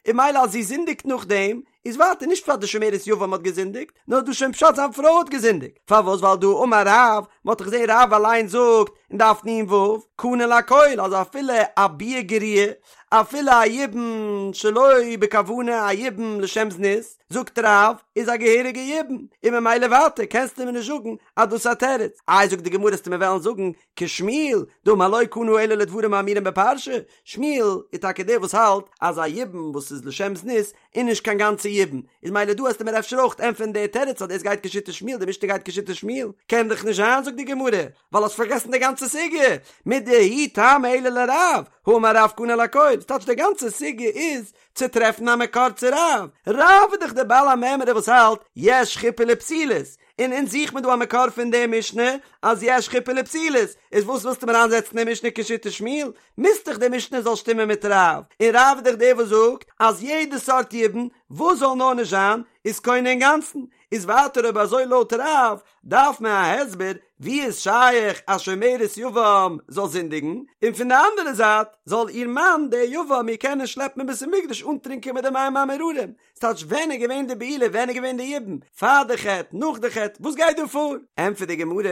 A: און ממילא אז זי זינדיגט נאכדעם, איז ווייטער נישט פשט די שומרת יבם האט געזינדיגט, נאר דא שוין פשט זיין פרוי האט געזינדיגט, פארוואס ווייל דהא אמר רב, מען האט דאך געזען רב אליין זאגט אין דף נ"ו, קנה לכל, אז אפילו א ביאה גרועה, אפילו א יבום שלא בכוונה א יבום לשם זנות, זאגט רב, איז א געהעריגע יבום, און ממילא ווייטער קענסטו מיר נישט זאגן אז דאס איז א תירוץ, איי זאגט די גמרא עסטו מיר וועלן זאגן כשמואל, דאמר לא קנה אלא לדברים האמורים בפרשה, שמואל איז טאקע דער וואס האלט אז א יבום וואס איז לשם זנות איז נישט קיין גאנצע יבום, איז מילא דא עסטו מיר אפשר אויך ענטפערן די תירוץ אז דאס גייט כשיטת שמואל, די משנה גייט כשיטת שמואל, קען דאך נישט זיין זאגט די גמרא, ווייל האסט פארגעסן די גאנצע סוגיא, מידי הוא טעמא אלא לרב, האמר רב קנה לכל, ס'טייטש די גאנצע סוגיא איז צו טרעפן א מקור צו רב, רב איז דאך דער בעל המימרא וואס האלט יש חופה לפסולות, און אונז זוכט מען דא א מקור פון די משנה אז יש חופה לפסולות, איז וואס ווילסטו מיר איינזעצן די משנה כשיטת שמואל? מוז דאך די משנה זאל שטימען מיט רב, און רב איז דאך דער וואס זאגט אז יעדע סארט יבום. וואס זאל נאר נישט זיין, איז קונה אינגאנצן, איז ווייטער אויב אזוי לויט רב, דארף מען א הסבר ווי איז שייך א שומרת יבם זאל זינדיגן, און פון די אנדערע זייט זאל איר מאן דער יבם איר קענען שלעפן אין בית המקדש אנטרינקען מיט די מים המאררים, ס'טייטש ווען איז געווען די בעילה ווען איז געווען די יבום, פאר די חטא נאך די חטא וואס גייט דא פאר? ענטפערט די גמרא,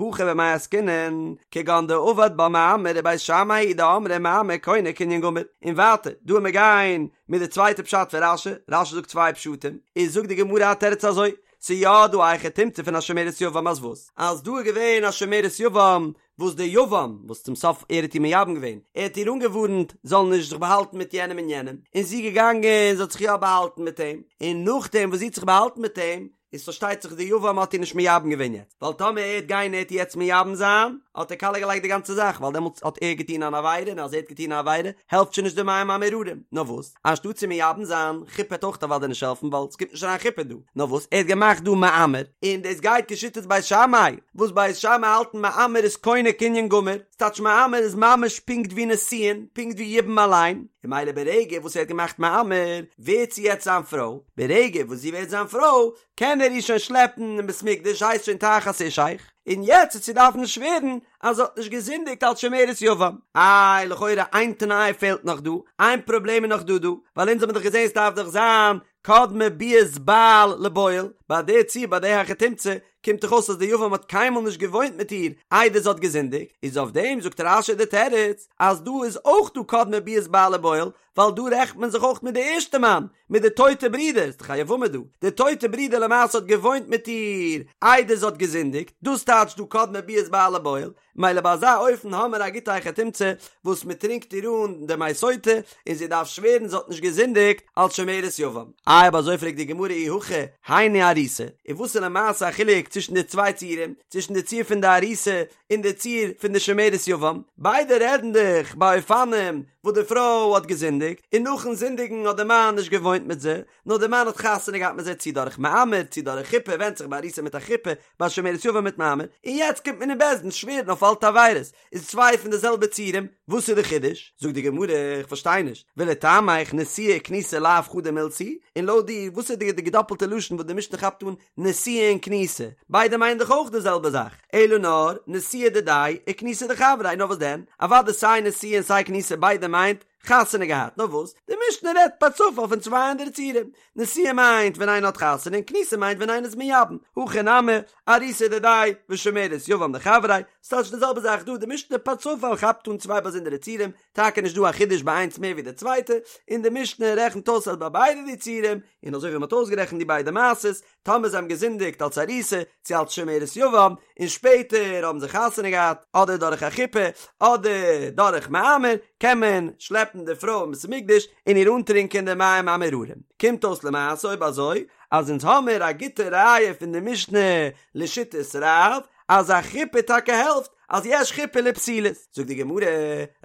A: הכא במאי עסקינן, כגון דעבד בה מאמר ובית שמאי היא דאמרי מאמר קונה קנין גמור, און ווייטער דא וועט מען גיין מיט די צווייטע פשט פון רש"י, רש"י זאגט צוויי פשטים, איז זאגט די גמרא א תירוץ אזוי, ס'איז יא דא א היכי תמצא פון א שומרת יבם אז וואס? אז דא איז געווען א שומרת יבם וואס דער יבם וואס צום סוף ער האט איר מייבם געווען, ער האט איר אנגעווארנט זאל נישט זיך באהאלטן מיט יענעם און יענעם, און זי איז געגאנגען זי האט זיך יא באהאלטן מיט אים, און נאכדעם וואס זי האט זיך באהאלטן מיט אים, איז פארשטייט זיך דער יבם האט איר נישט מייבם געווען יעצט, ווייל טאמער ער וועט גיין ער וועט איר יעצט מייבם זיין, האט ער קאליע געלייגט די גאנצע זאך, ווייל דעמאלטס האט ער געטון אן עבירה און אז ער האט געטון א עבירה העלפט שוין נישט די מים המאררים, נאר וואס? אנשטאט צו מייבם זיין, חופה וועט אויך אוודאי נישט העלפן ווייל ס'קומט נישט אריין חופה דא, נאר וואס ער האט געמאכט דא מאמר, און דאס גייט כשיטת בית שמאי, וואס בית שמאי האלטן מאמר איז קונה קנין גמור, ס'טייטש מאמר איז ממש פונקט ווי נישואין, פונקט ווי יבום אליין, און ממילא ברגע וואס ער האט געמאכט מאמר, ווערט זי יעצט זיין פרוי, ברגע וואס זי ווערט זיין פרוי, קען ער איר שוין שלעפן אין בית מקדש הייסט שוין תחת אישך, און יעצט וועט זי דארפן שווערן אז זי האט נישט געזינדיגט אלס שומרת יבם. איי, לכאורה איין תנאי פעלט נאך דא, איין פראבלעם איז נאך דא דא, ווייל אונז האבן דאך געזען ס'דארף דאך זיין קדמה ביאת בעל לבועל, ביי די ציור ביי די היכי תמצא קומט דאך אויס אז די יבם האט קיינמאל נישט געוואוינט מיט איר איידער זי האט געזינדיגט, איז אויף דעם זאגט רש"י די תירוץ אז דא איז אויך דא קדמה ביאת בעל לבועל, ווייל דא רעכנט מען זיך אויך מיט די ערשטע מאן, מיט די טויטע ברודער, ס'איז דאך א יבמה דא, די טויטע ברודער למעשה האט געוואוינט מיט איר איידער זי האט געזינדיגט, דאס טייטש דא קדמה ביאת בעל לבועל, מילא ביי אזא אופן האמער א גוטע היכי תמצא וואס מען טרינקט איר אן די מי סוטה און זי דארף שווערן זי האט נישט געזינדיגט אלס שומרת יבם. איי אויב אזוי פרעגט די גמרא אי הכי היינו ארוסה, און וואס איז למעשה א חילוק צווישן די צוויי ציורים, צווישן די ציור פון די ארוסה און די ציור פון די שומרת יבם, ביידע רעדן דאך ביי אופנים וואס די פרוי האט געזינדיגט, און נאכן זינדיגן האט די מאן נישט געוואוינט מיט זי, נאר די מאן האט חתונה געהאט מיט זי צי דורך מאמר צי דורך חופה, ווענדט זיך ביי ארוסה מיט א חופה, ביי שומרת יבם מיט מאמר, און יעצט קומט מען אין בית דין שווערן אויף אלטע עבירות, איז צוויי פון די זעלבע ציורים, וואס איז די חידוש? זאגט די גמרא, איך פארשטיי נישט, ולטעמיך נשואה וכנוסה לאו חדא מילתא היא, און לויט דיר, וואס איז די געדאפלטע לשון וואס די משנה כאפט אן נשואה און כנוסה, ביידע מיינען דאך אויך די זעלבע זאך, אלא נאר נשואה דידיה וכנוסה דחבריה, נאר וואס דען, אוודאי סיי נשואה און סיי כנוסה ביידע מיינט חתונה געהאט, נאר וואס, די משנה רעדט פער צופאל פון צוויי אנדערע ציורים, נשואה מיינט ווען איינער האט חתונה און כנוסה מיינט ווען איינער איז מייבם, הכא נמי, ארוסה דידיה ושומרת יבם דחבריה, ס'טייטש די זעלבע זאך דא, די משנה פער צופאל כאפט אן צוויי באזונדערע ציורים, טאקע נישט דא א חידוש ביי איינס מער ווי די צווייטע, און די משנה רעכנט אויס אז ביי ביידע די ציורים, און אזוי ווי מ'האט אויסגערעכנט די ביידע מעשות, טאמער זיי האבן געזינדיגט אלס ארוסה צו אלס שומרת יבם, און שפעטער האבן זיי חתונה געהאט, אדער דורך א חופה, אדער דורך מאמר, קען מען שלעפן די פרוי אין בית המקדש און איר אנטרינקען די מים המאררים. קומט אויס למעשה אויב אזוי, אז אונז האמיר א גוטע ראיה פון די משנה לשיטת רב, אז א חופה טאקע העלפט, אז יש חופה לפסולות, זאגט די גמרא,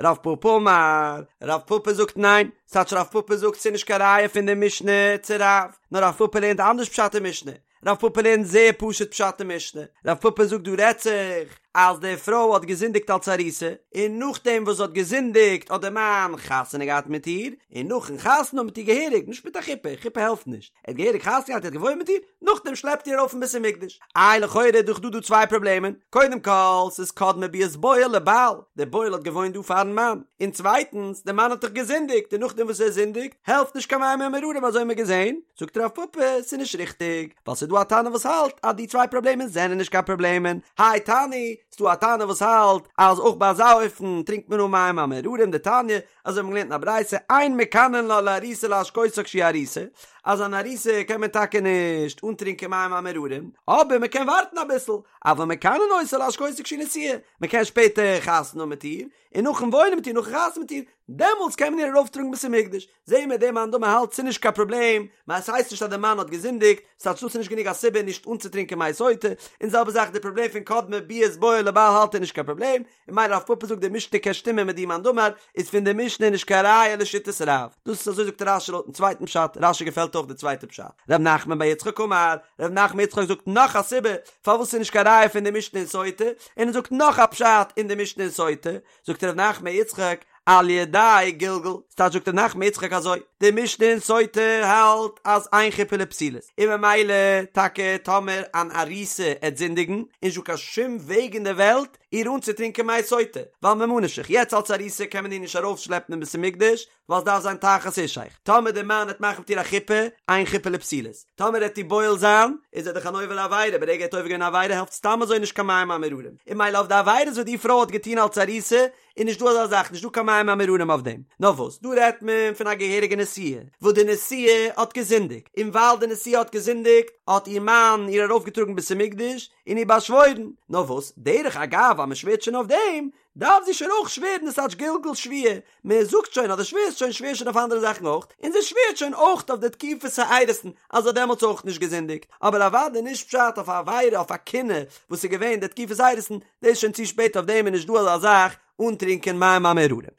A: רב פפא אמר, רב פפא זאגט ניין, ס'טייטש רב פפא זאגט ס'איז נישט קיין ראיה פון די משנה צו רב, נאר רב פפא לערנט אנדערש פשט אין משנה, רב פפא לערנט זייער פשוט פשט אין משנה, רב פפא זאגט דא רעדט זיך אז די פרוי האט געזינדיגט אלס ארוסה, און נאכדעם וואס זי האט געזינדיגט האט די מאן חתונה געהאט מיט איר, און נאכן חתונה האבן מיט איר געהעריג, נישט מיט א חופה, חופה העלפט נישט, ער האט געהעריג חתונה געהאט, ער האט געוואוינט מיט איר, נאכדעם שלעפט איר ארויף אין בית המקדש. איי לכאורה איז דאך דא דא צוויי פראבלעמען, קודם כל ס'איז קדמה ביאת בועל לבעל, דער בועל האט געוואוינט דא פארן מאן, און צווייטנס דער מאן האט דאך געזינדיגט און נאכדעם וואס ער זינדיגט העלפט נישט קיין מים המאררים אזוי האבן מיר געזען, זאגט רב פפא ס'איז נישט ריכטיג, ווייל ס'איז דא א תנא וואס האלט אז די צוויי פראבלעמען זענען נישט קיין פראבלעמען, האי תנא, ס'דא א תנא וואס האלט אז אויך ביי אזא אופן טרינקט מען אן מים המאררים דתניא, אזוי האבן מיר געלערנט אין א ברייתא, אין מקנין לה לארוסה להשקותה כשהיא ארוסה, אז אן ארוסה קען מען טאקע נישט אנטרינקען מים המאררים, אבער מען קען ווארטן אביסל, אבל מקנין אותה להשקותה כשהיא נשואה, מען קען שפעטער חתונה האבן מיט איר, און נאכן וואוינען מיט איר נאכן חתונה מיט איר, דעמאלטס קען מען איר ארויפטראגן בית המקדש, זעהן מיר דער מאן דאמר האלט ס'איז נישט קיין פראבלעם, ווייל ס'הייסט נישט אז דער מאן האט געזינדיגט, ס'טייטש דאס איז נישט גענוג א סיבה נישט אנצוטרינקען מי סוטה, און זעלבע זאך די פראבלעם פון קדמה ביאת בועל לבעל האלט ער נישט קיין פראבלעם, און ממילא רב פפא זאגט די משנה קען שטימען מיט די מאן דאמר, איז פון די משנה נישט קיין ראיה לשיטת רב. דאס איז אזוי זאגט רש"י לויטן צווייטן פשט, רש"י געפעלט אויך די צווייטע פשט. ר' נחמן בר יצחק אמר, ר' נחמן יצחק זאגט נאך א סיבה פארוואס ס'איז נישט קיין ראיה פון די משנה אין סוטה, און ער זאגט נאך א פשט אין די משנה אין סוטה, זאגט ר' נחמן יצחק על ידי גלגול, ס'טייטש זאגט ר' נחמן יצחק אזוי, די משנה אין סוטה האלט אז אין חופה לפסולות, און ממילא טאקע טאמער אן ארוסה עט זינדיגן, איז נישטא קיין שום וועג אין די וועלט איר אנצוטרינקען מי סוטה, ווייל ממה נפשך, יעצט אלס ארוסה קען מען איר נישט ארויפשלעפן אין בית המקדש, ווייל ס'דארף זיין תחת אישך, טאמער דער מאן עט מאכן מיט איר א חופה, אין חופה לפסולות, טאמער עט איר בועל זיין, איז ער דאך אן עובר עבירה, ברגע ער האט עובר געווען א עבירה העלפט סתם אזוי נישט קיין מים המאררים, און ממילא אויף די עבירות וואס די פרוי האט געטון אלס ארוסה, איז נישט דא אזא זאך, נישט דא קיין מים המאררים אויף דעם. נאר וואס, דא רעדט מען פון א געהעריגע נשואה, וואס די נשואה האט געזינדיגט, און ווייל די נשואה האט געזינדיגט, האט איר מאן איר ארויפגעטראגן בית המקדש, און איר באשוואוירן, נאר וואס, דרך אגב אז מען שווערט שוין אויף דעם, דארף זי שוין אויך שווערן דאס טייטש גלגול שבועה, מען זאגט שוין אז דו שווערסט שוין שווער שוין אויף אנדערע זאכן אויך, און זי שווערט שוין אויך אויף די תקופת האירוסין אז זי האט דעמאלטס אויך נישט געזינדיגט, אבער אוודאי נישט פשט אויף א עבירה אויף א קינוי וואס איז געווען די תקופת האירוסין, דאס איז שוין צו שפעט אויף דעם איז נישט דא אזא זאך אנטרינקען מים המאררים.